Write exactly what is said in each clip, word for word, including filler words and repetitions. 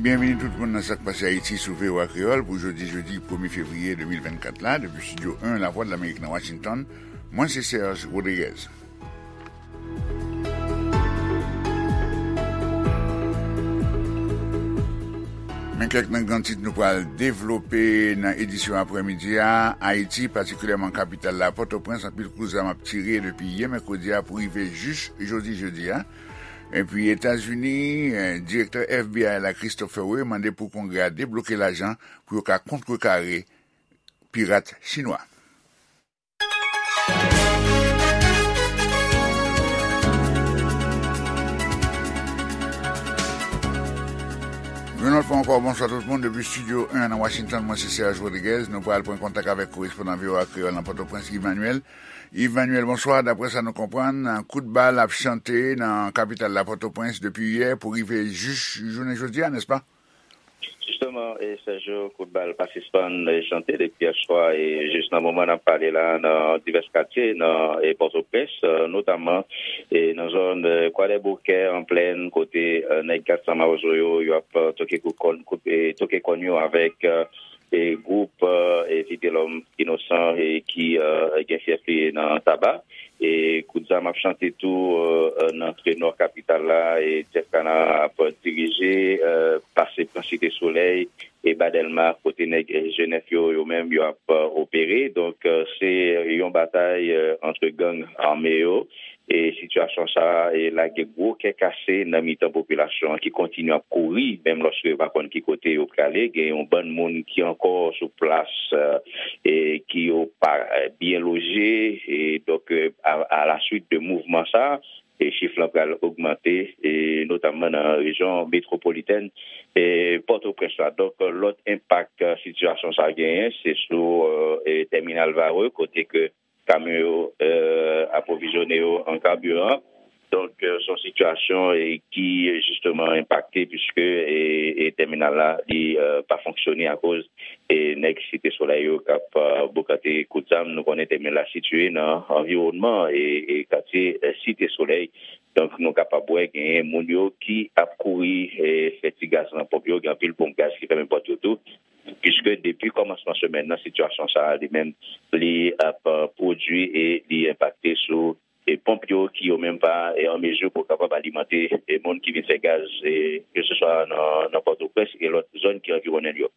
Byenvini tout moun nan Sa k Pase Ayiti sou V O A Kreyòl pou jodi jedi premye fevriye de mil vennkat la, depi Estidyo en Lavwadlamerik nan Washington. Mwen se Serge Rodriguez. Men kèk nan gran tit nou pral devlope nan edisyon aprèmidi a. Ayiti, patikilyèman kapital la, Pòtoprens, anpil kout zam ap tire depi yè mèkredi a pou rive jis jodi jedi a. Epi Etazini, eh, direktè F B I la, Christopher Wray, mande pou Kongrè a debloke lajan pou yo ka kontrekare pirat chinwa. Yon lòt fwa ankò, bonswa tout moun depi Estidyo en nan Washington. Mwen se Serge Rodriguez. Nou pral pran kontak avèk korespondan V O A Kreyòl nan Pòtoprens, Yves Manuel. Yves Manuel, bonswa. Daprè sa nou konprann, kout bal ap chante nan kapital la, Pòtoprens, depi yè pou rive jis jounen jodi a, nèspa? Jisteman, e, Sergio, kout bal pa sispann, e, chante depi yè swa, e jis nan moman n ap pale la, nan divès katye nan, e, Pòtoprens, e, notamman, e, nan zòn, e, Kwadèboukè, an plèn, kote, e, nèg kat san mawozo yo, y ap, e, toke kout kòn, kout, e, toke kòn yo avèk, e, e, gwoup, e, e, Vitelòm Inosan, e, ki, e, gen fyèf li nan Taba. E kout zam ap chante tou, e, e, nan antre nò kapital la, e Jeff Kana ap dirije, e, pase pran Site Solèy, e ba Dèlma, kote nèg, e, G nèf yo, yo menm, yo ap, e, opere. Donk, e, se yon batay, e, antre gang ame yo. E sitiyasyon sa a, e, lage gwo kè kase nan mitan popilasyon an ki kontinye ap kouri, menm lòske yo pa konn ki kote yo prale. Gen yon bann moun ki ankò sou plas, e, e ki yo pa, e, byen loje. E donk, e, a, a la suite de mouvman sa a, e chif lan pral ogmante, e notamman nan rejyon metwopolitèn, e Pòtoprens la. Donk, lòt enpak, e, sitiyasyon sa a genyen, se sou, e, e, tèminal Varreux, kote ke kamyon yo, e, apwovizyone yo an kabiran. Donk, e, se yon sitiyasyon, e, ki jisteman enpakte, piske, e, e, tèminal la, li, e, pa fonksyone akoz, e, nèg Site Solèy yo k ap, e, bokante kout zam. Nou konnen tèminal la sitiye nan anviwònman, e, e, katye, e, Site Solèy. Donk, nou kapab wè genyen moun yo ki ap kouri, e, fè ti gaz nan ponp yo. Gen anpil ponp gaz ki fèmen pòt yo tou. Piske depi kòmansman semèn nan, sitiyasyon sa a, li menm, li ap, e, pwodui e li enpakte sou, e, ponp yo ki yo menm pa, e, an mezi pou kapab alimante, e, moun ki vin fè gaz, e, keseswa nan, nan Pòtoprens e lòt zòn ki anviwonnen l yo.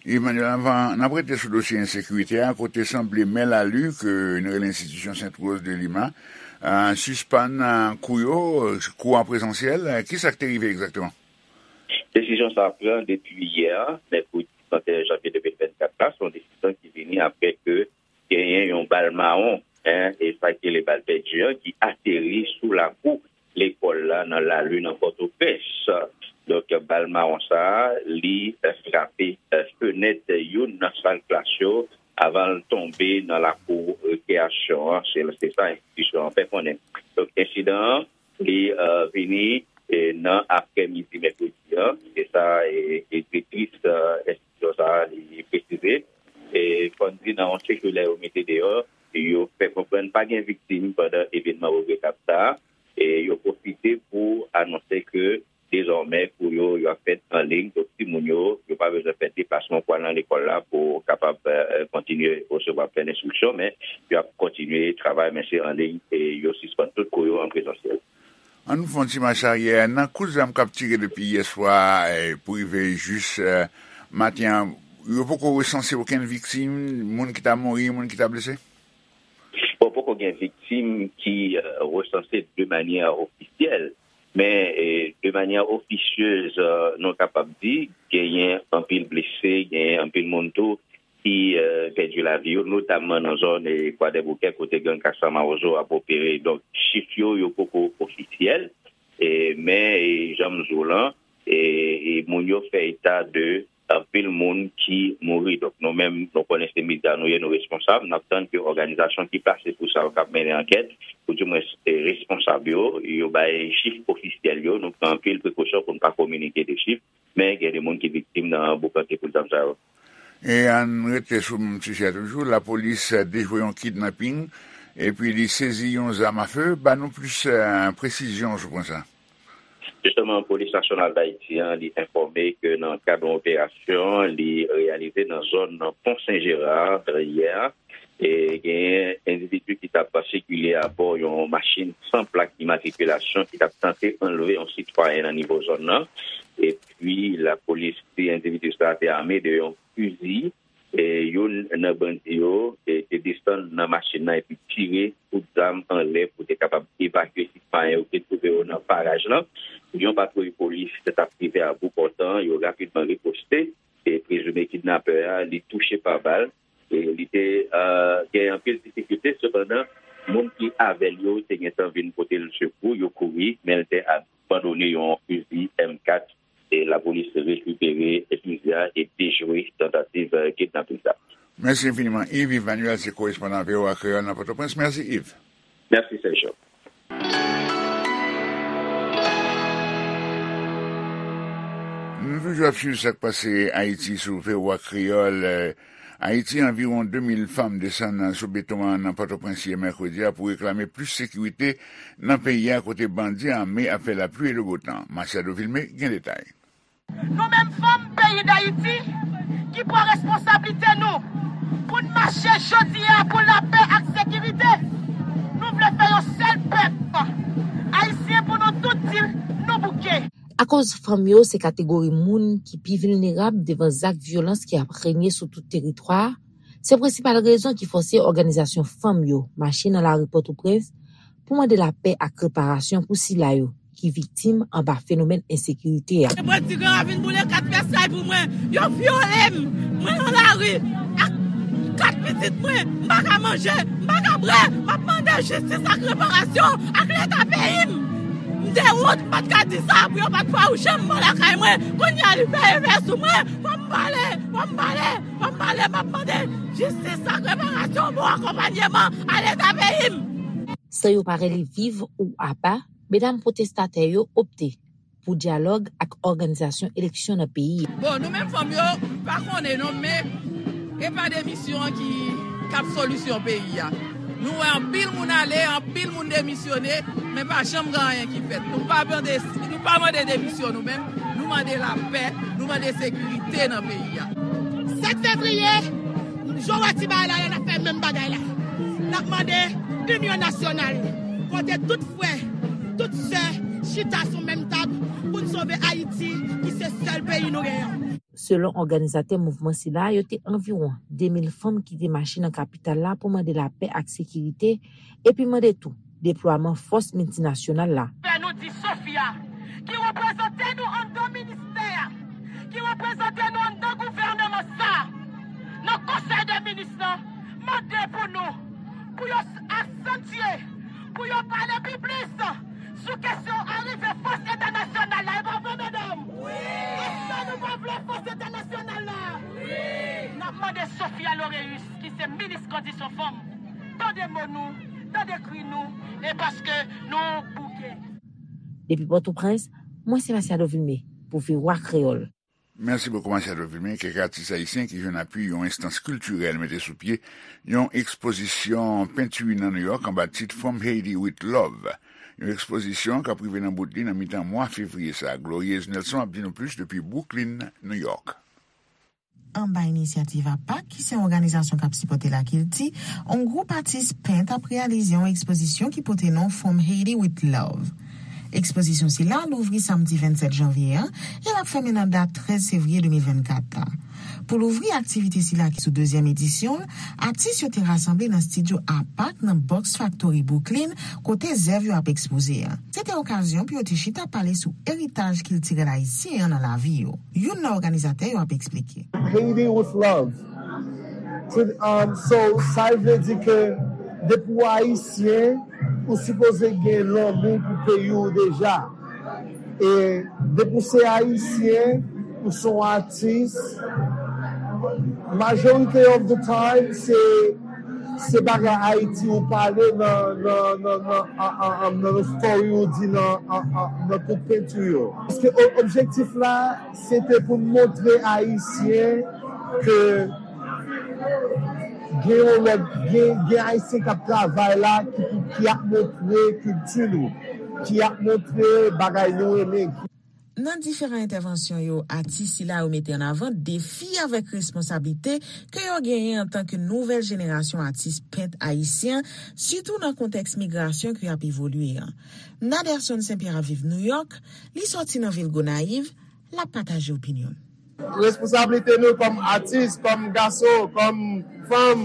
Emmanuel, anvan n ap rete sou dosye ensekirite a, kote sanble mè Lali, ke nou rele enstitisyon Sent Woz de Lima, a, sispann, a, kou yo, kou an prezansyèl, a, kisa k te rive egzakteman? Desizyon sa a pran depi yè, mèkredi trannteyen janvye de mil vennkat la, se yon desizyon ki vini apre ke genyen yon bal mawon, en, e sa ki rele bal pèdi an, ki ateri sou lakou lekòl la nan Lali nan Pòtoprens. Donk, bal mawon sa a, li, e, frape, e, fenèt youn nan sal klas yo avan l tonbe nan lakou rekreyasyon an. Se, se sa enstitisyon an fè konnen. Donk, ensidan an, li, e, vini, e, nan aprèmidi mèkredi an. Se sa, e, e, direktris, e, enstitisyon sa a, li presize. E, fò n di nan yon sikilè yo mete deyò, yo fè konprann pa gen viktim pandan evènman regretab sa a. E yo pwofite pou anonse ke dezòmè kou yo, yo ap fèt an liy. Donk, timoun yo, yo pa bezwen fè deplasman pou al nan lekòl la pou kapab, e, kontinye resevwa plen enstriksyon, men yo ap kontinye travay, men se an liy, e yo sispann tout kou yo an prezansyèl. An nou fè yon ti mach aryè. Nan kout zam k ap tire depi yè swa, e, pou rive jis, e, maten an, yo poko resanse okenn viktim, moun ki ta mouri, moun ki ta blese? Bon, poko gen viktim ki, e, resanse de manyè ofisyèl, men, e, de manyè ofisyez, e, nou kapab di, genyen anpil blese, genyen anpil moun tou ki, e, pèdi lavi yo, notamman nan zòn, e, Kwadèboukè, kote gang kat san mawozo ap opere. Donk, chif yo, yo poko ofisyèl, e, men, e, jan m di w lan, e, e moun yo fè eta de anpil moun ki mouri. Donk, nou menm, nou konnen se medya nou ye, nou responsab. N ap tann ke òganizasyon ki plase pou sa yo k ap mennen ankèt, ou dimwens, e, responsab yo, yo bay chif ofisyèl yo. Nou pran anpil prekosyon pou n pa kominike de chif, men gen de moun ki viktim nan boukante kout zam sa yo. E ann rete sou menm sijè toujou, lapolis dejwe yon kidnaping, epi li sezi yon zam afe. Ba nou plis, e, presizyon sou pwen sa. Jisteman, Polis Nasyonal Dayiti an, li enfòme ke nan kad yon operasyon li reyalize nan zòn Pon Sen Jera yè, e genyen endividi ki t ap sikile abò yon machin san plak imatrikilasyon ki t ap tante anlve yon sitwayen nan nivo zòn nan. Epi lapolis di endividi sa a te ame de yon fizi. E youn nan bandi yo, e, te desann nan machin nan epi tire kout zam anlè pou te kapab evakye sitwayen yo ki te twouve yo nan paraj lan. Yon patwouy polis t ap rive a bout pòtan, yo rapidman riposte. E prezime kidnapè a, li touche pa bal. E li te, e, gen anpil difikilte, sepandan, moun ki avè l yo te gentan vin pote l sekou, yo kouri, men l te abandone yon fizi M kat. E lapolis rekipere fizi a e dejwe tantativ, e, kidnaping sa. Mèsi enfiniman, Yves. Yves Manuel se korespondan V O A Kreyòl nan Pòtoprens. Mèsi, Yves. Mèsi, Sergio. Nou toujou ap swiv sa k pase Ayiti sou V O A Kreyòl. Ayiti, anviwon de mil fanm desann sou beton an nan Pòtoprens yè mèkredi a pou reklame plis sekirite nan peyi a, kote bandi ame ap fè lapli e le beau temps. Machado Vilmé gen detay. Nou menm fanm peyi Dayiti ki pran responsablite nou pou n mache jodi a pou lapè ak sekirite. Nou vle fè yon sèl pèp ayisyen pou nou tout di nou bouke. Akoz fanm yo se kategori moun ki pi vilnerab devan zak vyolans ki ap renye sou tout teritwa a, se prensipal rezon ki fòse òganizasyon fanm yo mache nan lari Pòtoprens pou mande lapè ak reparasyon pou sila yo ki viktim anba fenomèn ensekirite a. Mwen ti gran ravin boule kat fèsay pou mwen. Yo vyole m. Mwen nan lari ak kat pitit mwen. M pa ka manje, m pa ka bwè. M ap mande jistis ak reparasyon ak Leta peyi m. M te wont, m pa t ka di sa pou yo pa t fawouche m bò lakay mwen. Kounye a li fè efè sou mwen. Fò m pale, fò m pale, fò m pale. M ap mande jistis ak reparasyon, bon akonpanyeman a Leta peyi m. San yo pa rele viv ou apa, medam pwotestatè yo opte pou dyalòg ak òganizasyon eleksyon nan peyi a. Bon, nou menm fanm yo, m pa konnen non, men e pa demisyon an ki k ap solisyon peyi a. Nou wè anpil moun ale, anpil moun demisyone, men pa janm gen anyen ki fèt. Nou pa mande, nou pa mande demisyon nou menm, nou mande lapè, nou mande sekirite nan peyi a. Sèt fevriye, jan w wè ti bagay la, n ap fè menm bagay la. N ap mande inyon nasyonal, kote tout frè, tout sè chita sou menm tab pou n sove Ayiti, ki se sèl peyi nou genyen. Selon òganizatè mouvman sila, yo te anviwon de mil fanm ki te mache nan kapital la pou mande lapè ak sekirite, epi mande tou deplwaman fòs miltinasyonal la. Fè nou di Sofia, ki reprezante nou anndan ministè a, ki reprezante nou anndan gouvènman sa a, nan konsèy de minis lan, mande pou nou, pou yo asantye, pou yo pale pi plis sou kesyon arive fòs entènasyonal la. E pa vre, medam? Wi! Èske nou pa vle fòs entènasyonal la? Wi! N ap mande Sofia Loreus, ki se minis kondisyon fanm, tande mo nou, tande kri nou, e paske nou bouke. Depi Pòtoprens, mwen se Masiado Vilmé pou V O A Kreyòl. Mèsi bokou, Masiado Vilmé. Kèk atis ayisyen ki jwenn apui yon enstans kiltirèl mete sou pye yon ekspozisyon penti nan Nouyòk anba tit From Haiti with Love. Yon ekspozisyon k ap rive nan bout li nan mitan mwa fevriye sa a. Glorieuse Nelson ap di nou plis depi Brooklyn, Nouyòk. Anba inisyativ apak, ki se yon òganizasyon k ap sipòte lakilti, yon gwoup atis pent ap reyalize yon ekspozisyon ki pote non From Haiti with Love. Ekspozisyon sila louvri samdi vennsèt janvye an e l ap fèmen nan dat trèz fevriye de mil vennkat la. Pou louvri aktivite sila ki sou dezyèm edisyon l, atis yo te rasanble nan estidyo apak nan Box Factory Brooklyn, kote zèv yo ap ekspoze a. Se te okazyon pou yo te chita pale sou eritaj kiltirèl ayisyen an nan lavi yo. Youn nan òganizatè yo ap eksplike. Haiti with love. To, um, so, sa vle di ke depi w ayisyen, ou sipoze gen lanmou pou peyi w deja. E depi w se ayisyen, ou se yon atis, majorite of the time, se, se bagay Ayiti ou pale nan, nan, nan, nan, an, an, an, nan story ou di nan, an, an, nan tout penti yo. Paske o-, objektif la, se te pou n montre Ayisyen ke gen yon lòt, gen, gen Ayisyen k ap travay la, ki, ki ap montre kilti nou. ki ap montre bagay nou renmen. Nan diferan entèvansyon yo, atis sila yo mete an avan defi avèk responsablite ke yo genyen antanke nouvèl jenerasyon atis pent ayisyen, sitou nan kontèks migrasyon ki ap evolye an. Naderson St Pierre ap viv Nouyòk, li sòti nan vil Gonayiv, l ap pataje opinyon l. Responsablite nou kòm atis, kòm gason, kòm fanm,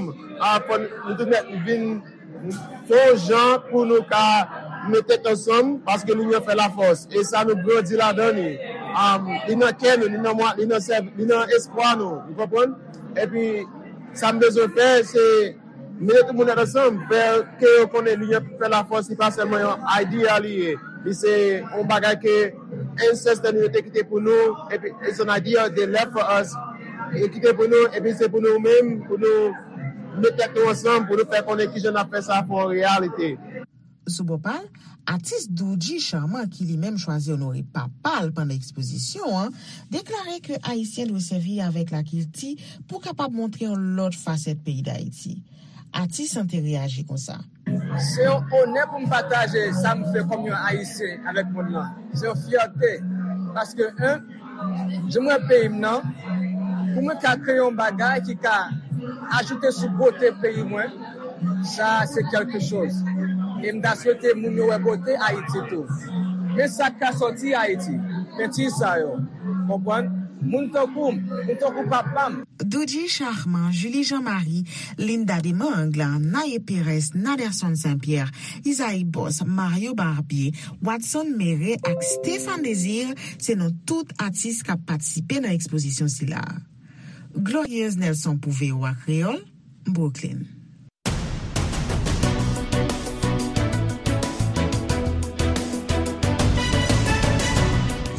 fò nou tout nèt vin fè yon jan pou nou ka met tèt ansanm, paske linyon fè lafòs. E sa nou grandi ladan li. Li nan kè nou, li nan mwa, li nan sèv, li nan espwa nou. Ou konprann? Epi sa m bezwen fè se mete tout moun tèt ansanm, fè ke yo konnen linyon fè lafòs, li pa sèlman yon idea li ye. Li se yon bagay ke ancestor nou yo te kite pou nou, epi it's an idea they left for us. Yo kite pou nou, epi se pou nou menm, pou nou met tèt nou ansanm, pou nou fè konnen kijan n ap fè sa fè yon reyalite. Sou bò pa l, atis Doudji Charmant ki li menm chwazi onore papa l pandan ekspozisyon an, deklare ke Ayisyen dwe sèvi avèk lakilti pou kapab montre yon lòt fasèt peyi Dayiti. Atis an te reyaji konsa. Se yon onè pou m pataje sa m fè kòm yon Ayisyen avèk mond lan. Se yon fyète. Paske, en, jan m wè peyi m nan, pou mwen ka kreye yon bagay ki ka ajoute sou bote peyi mwen, sa se kèlke choz. E m ta swete moun yo wè bote Ayiti tou. Men sa k ka sòti Ayiti, penti sa yo. Konprann? Moun tankou m, moun tankou papa m. Doudji Charmant, Julie Jean Marie, Linda Demangle, Naye Perez, Naderson Saint Pierre, Isaïe Boss, Mario Barbier, Watson Méré ak Stéphane Désir se non tout atis k ap patisipe nan ekspozisyon sila. Glorieuse Nelson pou V O A Kreyòl, Brooklyn.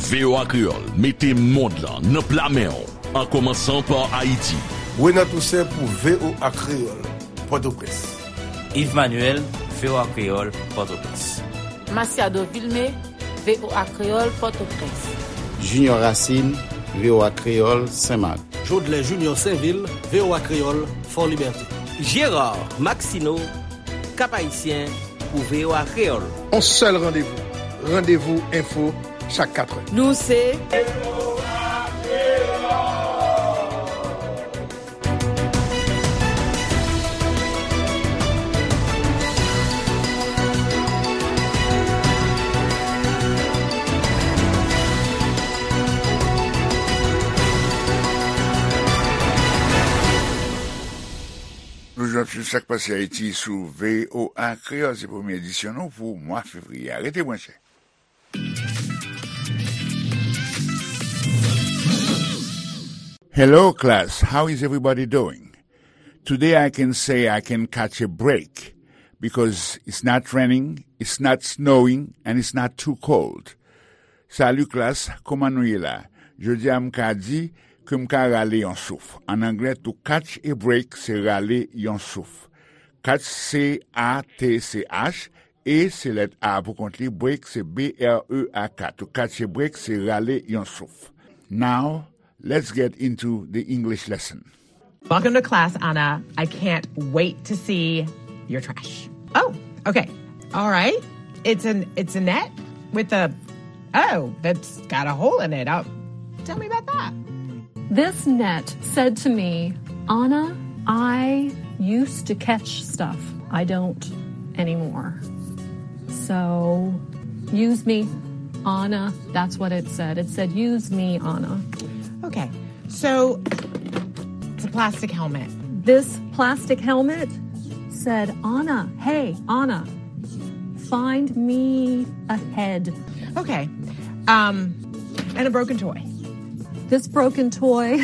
V O A Kreyòl mete mond lan nan pla men w, an kòmansan pa Ayiti. Renan Toussaint pou V O A Kreyòl, Pòtoprens. Yves Manuel, V O A Kreyòl, Pòtoprens. Masiado Vilmé, V O A Kreyòl, Pòtoprens. Junior Racine, V O A Kreyòl, Senmak. Jodlè Junior Sainvil, V O A Kreyòl, Fò Libète. Gérard Maxineau, Cap-Haïtien, pou V O A Kreyòl. On sèl randevou, Randevou Enfo, chak katrè. Nou se. Nou jwenn tout sa k pase Ayiti sou V O A Kreyòl. Se premye edisyon nou pou mwa fevriye a. Rete branche. Hello, class. How is everybody doing? Today I can say I can catch a break because it's not raining, it's not snowing, and it's not too cold. Salut, class. Kòman nou ye la? Jodi a, m ka di ke m ka rale yon souf. An anglè, to catch a break, se rale yon souf. Catch, C A T C H, e se lèt A pou kont li, break se B R E A K. To catch a break se rale yon souf. Now, let's get into the English lesson. Welcome to class, Anna. I can't wait to see your trash. Oh, okay. All right. It's an it's a net with a oh, that's got a hole in it. Oh, tell me about that. This net said to me, Anna, I used to catch stuff. I don't anymore. So use me, Anna. That's what it said. It said, use me, Anna. Okay. So it's a plastic helmet. This plastic helmet said, Anna, hey, Anna, find me a head. Okay. Um, and a broken toy. This broken toy,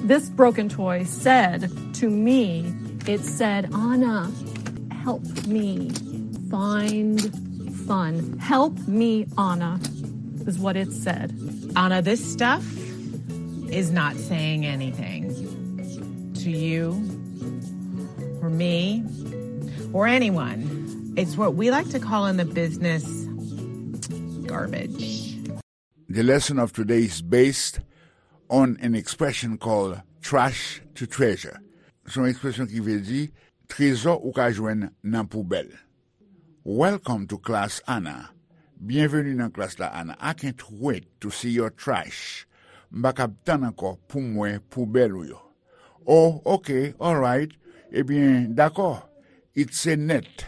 this broken toy said to me, it said, Anna, help me find fun. Help me, Anna, is what it said. Anna, this stuff is not saying anything to you, or me, or anyone. It's what we like to call in the business garbage. The lesson of today is based on an expression called trash to treasure. Se yon ekspresyon ki vle di trezò ou ka jwenn nan poubèl. Welcome to class, Anna. Byenveni nan klas la, Anna. I can't wait to see your trash. M pa kab tann ankò pou m wè poubèl ou yo. Oh, okay, alright. Ebyen, dakò. It's a net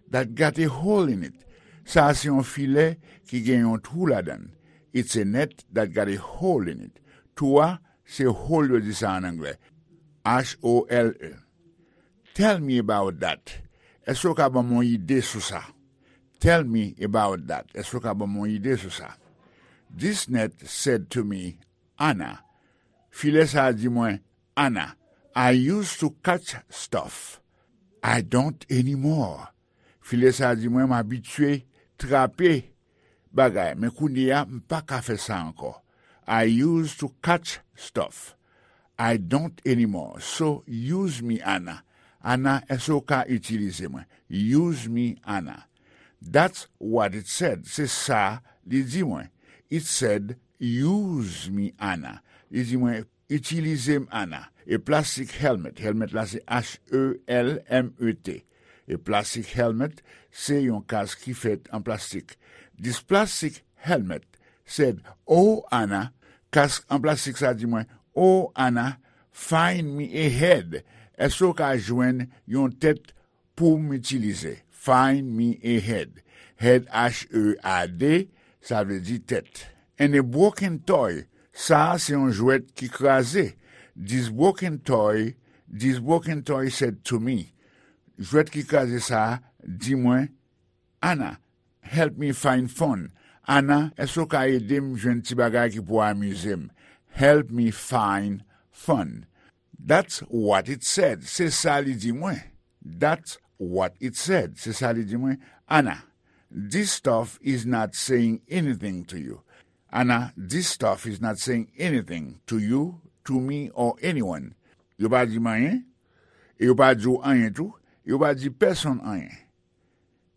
that got a hole in it. Sa a se yon filè ki gen yon twou ladan l. It's a net that got a hole in it. Twou a, se hole yo di sa an anglè. H O L E. Tell me about that. Èske w ka ban m yon ide sou sa? Tell me about that. Èske w ka ban m yon ide sou sa? This net said to me, Anna. Filè sa a di mwen, Anna, I used to catch stuff. I don't anymore. Filè sa a di mwen, m abitye trape bagay, men kounye a, m pa ka fè sa ankò. I used to catch stuff. I don't anymore. So, use me, Anna. Anna, èske w ka itilize mwen? Use me, Anna. That's what it said. Se sa li di mwen. It said, use me, Anna. Li di mwen, itilize m, Anna. A plastic helmet. Helmet la se H E L M E T. A plastic helmet, se yon kask ki fèt an plastik. This plastic helmet said, oh, Anna, kask an plastik sa di mwen, oh, Anna, find me a head. Èske w ka jwenn yon tèt pou m itilize? Find me a head. Head, H E A D, sa vle di tèt. And a broken toy. Sa a se yon jwèt ki kraze. This broken toy, this broken toy said to me. Jwèt ki kraze sa a di mwen, Anna, help me find fun. Anna, èske w ka ede m jwenn ti bagay ki pou amize m? Help me find fun. That's what it said. Se sa li di mwen. That's what it said. Se sa li di mwen. Anna, this stuff is not saying anything to you. Anna, this stuff is not saying anything to you, to me, or anyone. Yo pa di m anyen, e yo pa di w anyen tou, e yo pa di pèsonn anyen.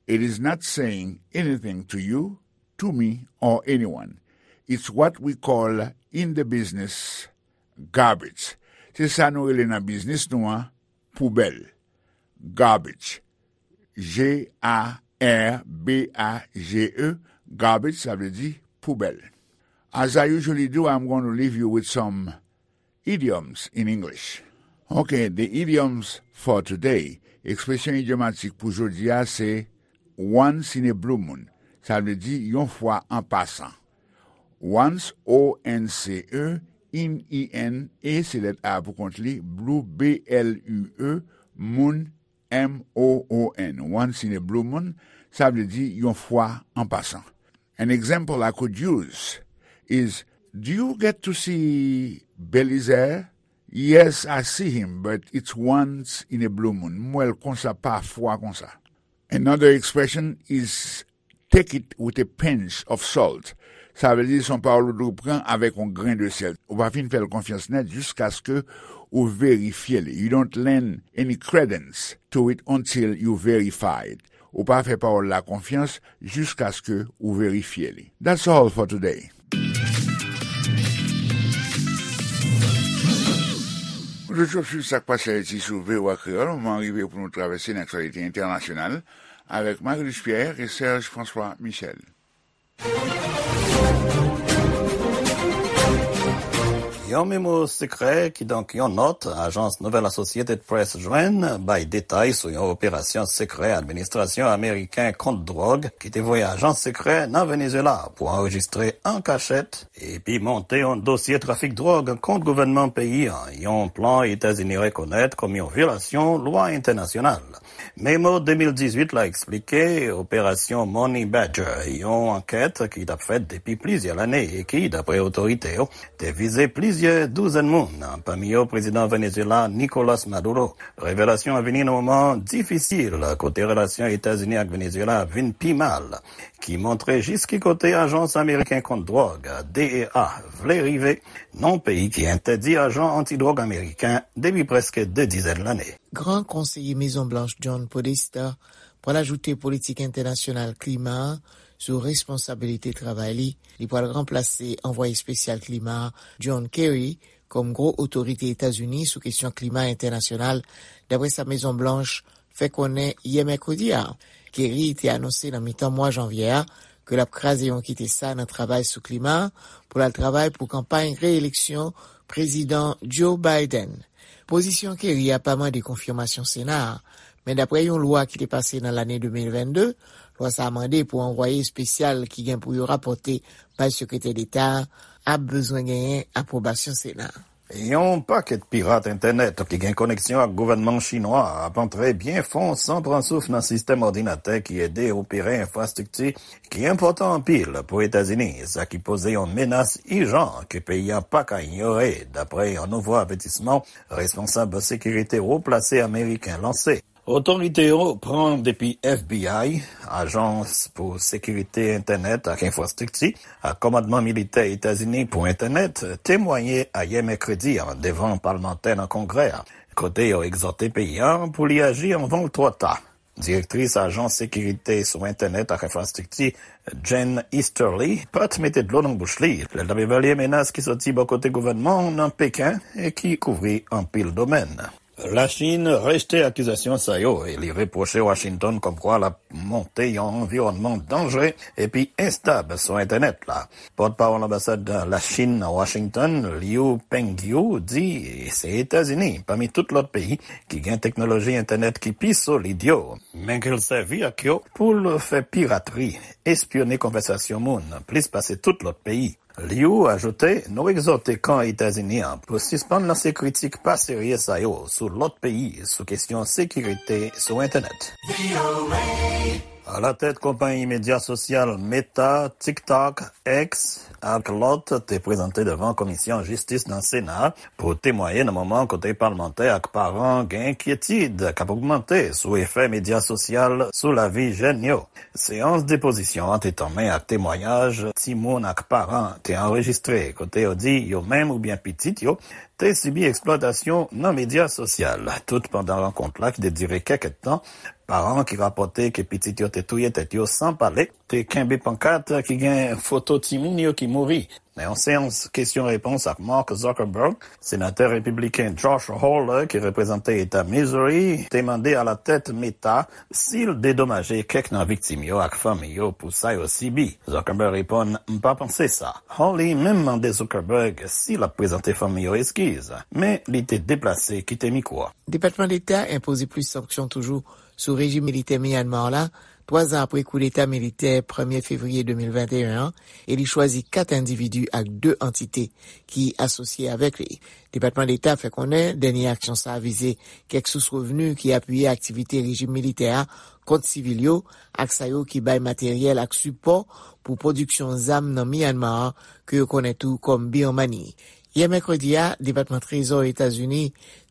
It is not saying anything to you, to me, or anyone. It's what we call in the business garbage. Se sa nou rele nan biznis nou an poubèl. Garbage. G A R B A G E. Garbage, sa vle di poubèl. As I usually do, I'm going to leave you with some idioms in English. Ok, the idioms for today. Ekspresyon idyomatik pou jodi a se once in a blue moon. Sa vle di yon fwa an pasan. Once, O N C E, in, E N, e se lèt A pou kont li, blue, B L U E, moon, M O O N. Once in a blue moon, sa vle di yon fwa an pasan. An example I could use is, do you get to see Belizaire? Yes, I see him, but it's once in a blue moon. M wè l konsa, pafwa konsa. Another expression is take it with a pinch of salt. Sa vle di se yon pawòl ou dwe pran avèk yon grenn de sèl. Ou pa fin fè l konfyans nèt jiskaske ou verifye li. You don't lend any credence to it until you verify it. Ou pa fè pawòl la konfyans jiskaske ou verifye li. That's all for today. Ou toujou ap swiv sa k pase Ayiti sou V O A Kreyòl. Moman an rive pou nou travèse nan aktyalite entènasyonal avèk Marie-Luce Pierre e Serge François Michel. Yon memo sekrè, kidonk yon nòt, ajans nouvèl Associated Press jwenn, bay detay sou yon operasyon sekrè administrasyon ameriken kont dwòg ki te voye ajan sekrè nan Venezuela pou anrejistre an kachèt epi monte yon dosye trafik dwòg kont gouvènman peyi a, yon plan Etazini rekonèt kòm yon vyolasyon lwa entènasyonal. Memo de mil dizuit la eksplike operasyon Money Badger, yon ankèt ki t ap fèt depi plizyè lane e ki, dapre otorite yo, te vize plizyè douzèn moun, pami yo prezidan Venezuela Nicolas Maduro. Revelasyon an vini nan moman difisil kote relasyon Etazini ak Venezuela vin pi mal, ki montre jis ki kote ajans ameriken kont dwòg, D E A, vle rive nan peyi ki entèdi ajan antidwòg ameriken depi prèske de dizèn lane. Gran Konseye Mezon Blanch John Podesta pral ajoute politik entènasyonal klima a sou responsabilite travay li. Li pral ranplase anvwaye espesyal klima a, John Kerry, kòm gwo otorite Etazini sou kesyon klima entènasyonal, dapre sa Mezon Blanch fè konnen yè mèkredi a. Kerry te anonse nan mitan mwa janvye a ke l ap kraze yon kite sa nan travay sou klima a pou l al travay pou kanpay reyeleksyon Prezidan Joe Biden. Pozisyon Kerry a pa mande konfimasyon Sena a, men dapre yon lwa ki te pase nan lane de mil vennde, lwa sa a mande pou anvwaye espesyal ki gen pou yo rapòte bay Sekretè Deta a ap bezwen genyen apwobasyon Sena a. Yon pakèt pirat entènèt ki gen koneksyon ak gouvènman chinwa a ap antre byen fon san pran souf nan sistèm òdinatè ki ede opere enfrastrikti ki enpòtan anpil pou Etazini, sa ki poze yon menas ijan ke peyi a pa ka inyore, dapre yon nouvo avètisman responsab sekirite wo plase ameriken lanse. Otorite yo pran depi F B I, Ajans pou Sekirite Entènèt ak Enfrastrikti, ak Kòmandman Militè Etazini pou Entènèt, temwaye ayè mèkredi a devan palmantè nan Kongrè a, kote yo egzòte peyi a pou li aji anvan l twò ta. Direktris Ajans Sekirite sou Entènèt ak Enfrastrikti, Jen Easterly, pa t mete dlo nan bouch li lè l t ap evalye menas ki soti bò kote gouvènman an nan Peken e ki kouvri anpil domèn. Lachin rejte akizasyon sa yo e li repwoche Washington kòmkwa l ap monte yon anviwònman danjre epi enstab sou entènèt la. Pòtpawòl anbasad Lachin nan Washington, Liu Pengyu, di se Etazini, pami tout lòt peyi, ki gen teknoloji entènèt ki pi solid yo, men ke l sèvi ak yo pou l fè piratri, espyone konvèsasyon moun, plis pase tout lòt peyi. Liu ajoute, nou egzòte kan Etazini an pou sispann lanse kritik pa serye sa yo sou lòt peyi sou kesyon sekirite sou entènèt. Alatèt konpayi medya sosyal Meta, TikTok, X ak lòt te prezante devan Komisyon Jistis nan Sena pou temwaye nan moman kote palmantè ak paran gen enkyetid k ap ogmante sou efè medya sosyal sou lavi jèn yo. Seyans depozisyon an te tanmen ak temwayaj timoun ak paran te anrejistre, kote yo di yo menm oubyen pitit yo te sibi eksplwatasyon nan medya sosyal. Tout pandan rankont la ki te dire kèk èdtan, paran ki rapòte ke pitit yo te touye tèt yo san pale, te kenbe pankat ki gen foto timoun yo ki mouri. Nan yon seyans kesyon repons ak Mark Zuckerberg, senatè repibliken Josh Hawley, ki reprezante eta Missouri, te mande alatèt Meta si l dedomaje kèk nan viktim yo ak fanmi yo pou sa yo sibi. Zuckerberg reponn, "M pa panse sa." Hawley menm mande Zuckerberg si l ap prezante fanmi yo eskiz, men li te deplase kite mikwo a. Depatman Deta enpoze plis sanksyon toujou sou rejim militè Myanmar la, twa zan apre koudeta militè premye fevriye de mil venteyen an, e li chwazi kat endividi ak de antite ki asosye avèk li. Depatman Deta fè konnen dènye aksyon sa a vize kèk sous revni ki apiye aktivite rejim militè a kont sivil yo, ak sa yo ki bay materyèl ak sipò pou pwodiksyon zam nan Myanmar, ke yo konnen tou kòm Birmani. Yè mèkredi a, Depatman Trezò Etazini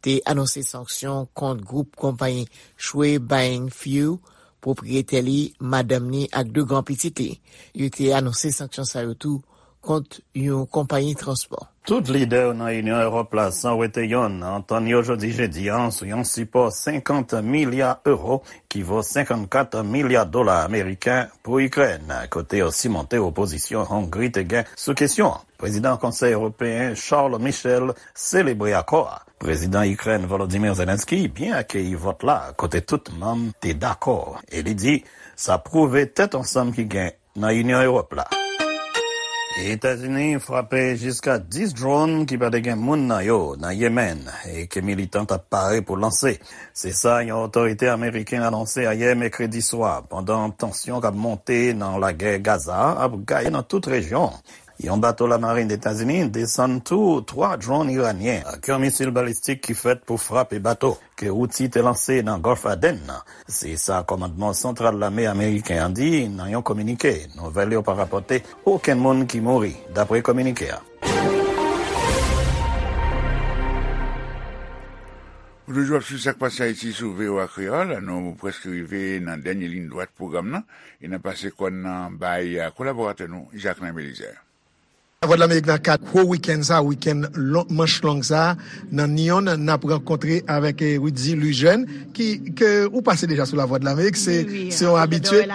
te anonse sanksyon kont gwoup konpayi Shwe Baing Few, pwopriyetè li, madanm ni ak de granpitit li. Yo te anonse sanksyon sa yo tou kont yon konpayi transpò. Tout lidè nan Inyon Ewòp la, san wete yonn, antann yo jodi jedi a sou yon sipò senkant milya ewo, ki vo senkannkat milya dola ameriken, pou Ikrèn, kote yo simonte opozisyon Hongri te gen sou kesyon an. Prezidan Konsèy Ewopeyen Charles Michel selebre akò a. Prezidan Ikrèn Volodymyr Zelensky byen akeyi vòt la, kote tout manm te dakò, e li di sa pwouve tèt ansanm ki gen nan Inyon Ewòp la. Etazini frape jiska dis dwòn ki pa te gen moun nan yo nan Yemen e ke militan t ap pare pou lanse. Se sa yon otorite ameriken anonse ayè mèkredi swa, pandan tansyon k ap monte nan lagè Gaza a ap gaye nan tout rejyon an. Yon bato lamarin Etazini desann tou twa dwòn iranyen ak yon misil balistik ki fèt pou frape bato ke Houthi te lanse nan Gòlf Aden nan. Se sa kòmandman santral lame ameriken an di nan yon kominike. Nouvèl yo pa rapòte okenn moun ki mouri, dapre kominike a. Ou toujou ap swiv Sa k Pase Ayiti sou V O A Kreyòl. Nou prèske rive nan dènye liy dwat pwogram nan e n ap pase kòn nan bay kolaboratè nou, Jacquelin Belizaire. Lavwadlamerik nan kad gwo wikenn sa, wikenn lon- manch long sa, nan Nyon, n ap rankontre avèk eh, Rudy Lujèn, ki ke ou pase deja sou Lavwadlamerik, se se yon abitye.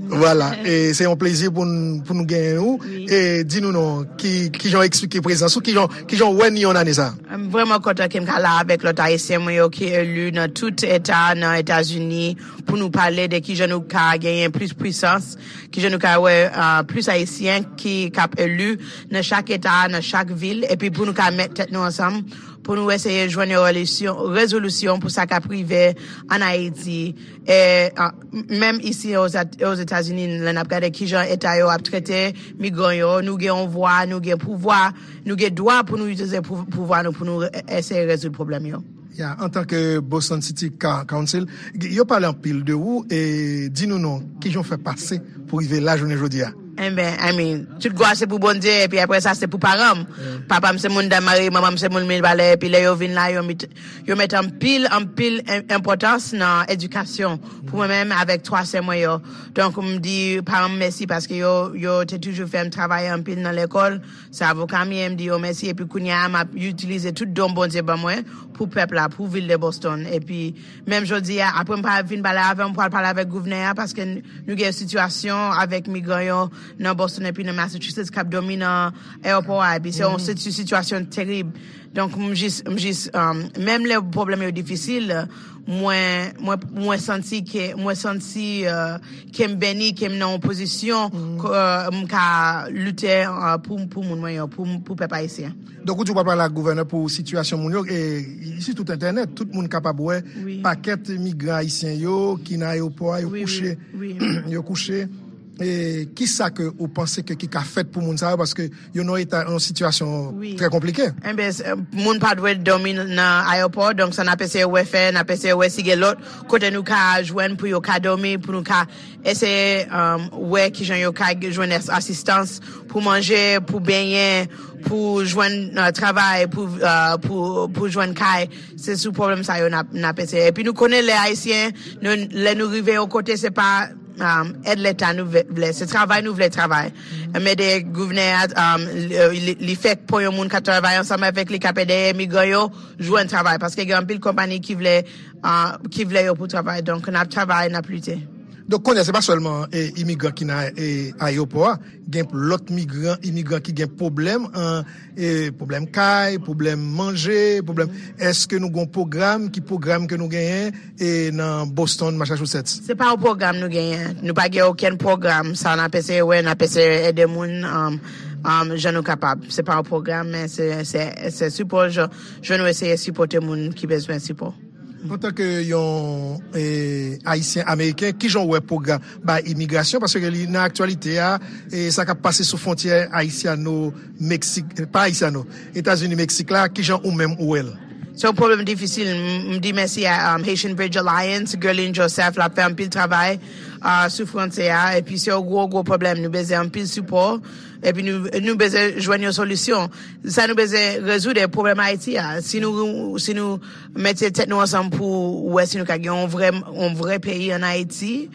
Vwala, e se yon plezi pou n- pou nou genyen ou. E di nou non, ki ki jan w eksplike prezans ou, ki jan ki jan w wè Nyon ane sa? M vrèman kontan ke m ka la avèk lòt Ayisyen mwen yo ki eli nan tout eta nan Etazini pou nou pale de ki jan nou ka genyen plis pwisans, ki jan nou ka wè uh, plis Ayisyen ki k ap eli nan chak eta, nan chak vil, epi pou nou ka met tèt nou ansanm, pou nou eseye jwenn yon relisyon- rezolisyon pou sa k ap rive ann Ayiti. E, uh, menm isi Ozetazini, lè n ap gade ki jan eta yo ap trete migran yo, nou gen yon vwa, nou gen pouvwa, nou gen dwa pou nou itilize pouvwa nou pou nou eseye rezoud pwoblèm yo. Ya, antanke Boston City Council, yo pale anpil de ou e di nou non, kijan w fè pase pou rive la jounen jodi a? Enben, I mean, tout glwa se pou Bondye, epi apre sa se pou paran m. Papa m se moun Daymarè, manman m se moun Mibalè, epi lè yo vin la, yo met, yo met anpil, anpil enpòtans nan edikasyon pou mwen menm avèk twa sè mwen yo. Donk, m di paran m mèsi paske yo, yo te toujou fè m travay anpil nan lekòl. Se avoka m ye, m di yo mèsi, epi kounye a m ap itilize tout don Bondye ban mwen pou pèp la, pou vil de Boston. Epi menm jodi a, apre m pa vin pale avè w, m pral pale avèk gouvènè a, paske n- nou gen sitiyasyon avèk migran yo nan Boston epi nan Massachusetts k ap dòmi nan ayewopò a, epi se yon siti- sitiyasyon terib. Donk, m jis, m jis, um, menm lè pwoblèm yo difisil, mwen, mwen, mwen santi ke, mwen santi uh, ke m beni, ke m nan yon pozisyon ke uh, m ka lite uh, pou, pou moun mwen yo, pou, pou pèp ayisyen. Donk, ou di w pral pale ak gouvènè pou sitiyasyon moun yo, e sitou entènèt, tout moun kapab wè pakèt migran ayisyen yo ki nan ayewopò a, yo kouche, yo kouche. E kisa ke ou panse ke ki ka fèt pou moun sa yo, paske yo nan eta, yon sitiyasyon trè konplike? Enben, s- moun pa dwe dòmi nan ayewopò, donk sa n ap eseye wè fè, n ap eseye wè si gen lòt kote nou ka jwenn pou yo ka dòmi, pou nou ka eseye um, wè kijan yo ka jwenn as- asistans pou manje, pou benyen, pou jwenn uh, travay, pou, uh, pou, pou jwenn kay. Se sou pwoblèm sa yo n ap n ap eseye. Epi nou konnen lè ayisyen, nou, lè nou rive yon kote, se pa um, èd leta nou vle, vle, se travay nou vle travay. M ede gouvènè a, um, li, li, li fèk pran yon moun k ap travay ansanm avèk li, k ap ede imigran yo jwenn travay. Paske gen anpil konpayi ki vle, uh, ki vle yo pou travay. Donk, n ap travay, n ap lite. Donk, kounye a, se pa sèlman eh, imigran ki nan eh, ayewopò a, gen lòt migran, imigran ki gen pwoblèm, an, eh, pwoblèm kay, pwoblèm manje, pwoblèm. Èske nou gen yon pwogram? Ki pwogram ke nou genyen eh, nan Boston, Massachusetts? Se pa yon pwogram nou genyen. Nou pa gen okenn pwogram. Sa n ap eseye wè, n ap eseye ede moun, um, um, jan nou kapab. Se pa yon pwogram, men se, se, se sipò, jan, jan nou eseye sipòte moun ki bezwen sipò. Antanke yon eh, Ayisyen Ameriken, kijan w wè pwogram bay imigrasyon? Paske li nan aktyalite a, eh, sa k ap pase sou fwontyè Ayisyano-Meksik, pa Ayisyano, Etazini-Meksik la, kijan ou menm ou wè l? Se yon pwoblèm difisil. M, m di mèsi a um, Haitian Bridge Alliance, Guerline Joseph, l ap fè anpil travay uh, sou fwontyè a. Epi se yon gwo, gwo pwoblèm. Nou bezwen anpil sipò. Epi nou, nou bezwen jwenn yon solisyon. Sa nou bezwen rezoud e pwoblèm Ayiti a. Si nou, si nou mete tèt nou ansanm pou wè si nou ka gen yon vrè, yon vrè peyi ann Ayiti,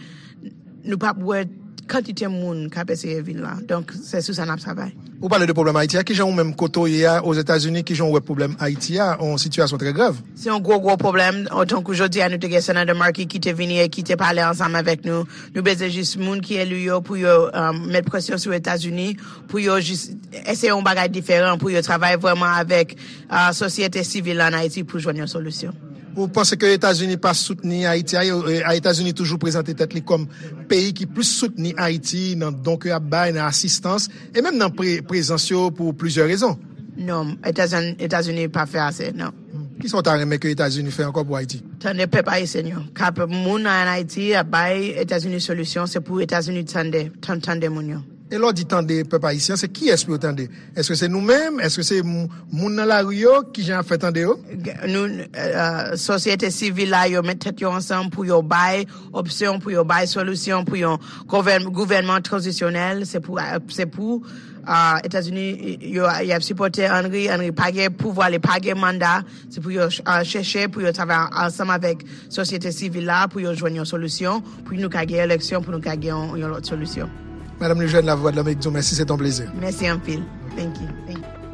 nou p ap wè kantite moun k ap eseye vin la. Donk, se sou sa n ap travay. Ou pale de pwoblèm Ayiti a. Kijan ou menm kote w ye a, Ozetazini, kijan w wè pwoblèm Ayiti a, yon sitiyasyon trè grav? Se yon gwo, gwo pwoblèm. Tankou jodi a, nou te gen Senatè Markey ki te vini e ki te pale ansanm avèk nou. Nou bezwen jis moun ki eli yo pou yo um, met presyon sou Etazini, pou yo jis eseye yon bagay diferan, pou yo travay vrèman avèk uh, sosyete sivil ann Ayiti pou jwenn yon solisyon. Ou panse ke Etazini pa soutni Ayiti a, e, e, Etazini toujou prezante tèt li kòm peyi ki plis soutni Ayiti nan don ke y ap bay, nan asistans, e menm nan pre, prezans yo pou plizyè rezon? Non, Etazini, Etazini pa fè ase, non. Kisa w ta renmen ke Etazini fè ankò pou Ayiti? Tande pèp ayisyen yo. K ap moun ann Ayiti ap bay Etazini solisyon, se pou Etazini tande, tan- tande moun yo. E lè w di tande pèp ayisyen, se kiyès pou yo tande? Èske se nou menm? Èske se m- moun nan lari yo? Kijan y ap fè tande yo? G- Nou, uh, sosyete sivil la, yo met tèt yo ansanm pou yo bay opsyon, pou yo bay solisyon, pou yon gouvèn- gouvènman tranzisyonèl. Se pou, uh, se pou uh, Etazini, yo, y ap sipòte Henry. Henry pa gen pouvwa, li pa gen manda. Se pou yo ch- uh, chèche, pou yo travay ansanm avèk sosyete sivil la, pou yo jwenn yon solisyon, pou nou ka gen eleksyon, pou nou ka gen yon, yon lòt solisyon. Madanm Lejèn, Lavwadlamerik di w mèsi, se t on plezi. Mèsi anpil. Thank you. Thank you.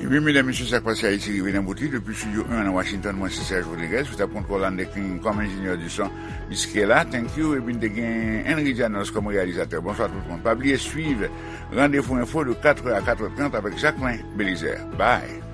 Ebyen, medam, mesye, Sa k Pase Ayiti rive nan bout li. Depi Estidyo en nan Washington, mwen se Serge Rodriguez, sou tab kontwòl Anne King kòm enjenyè di son. Miss Kela, thank you. Epi n te gen Henry Janos kòm reyalizatè. Bonswa tout moun. Pa bliye swiv Randevou Enfo de katrè a katrè trant avèk Jacquelin Belizaire. Bye.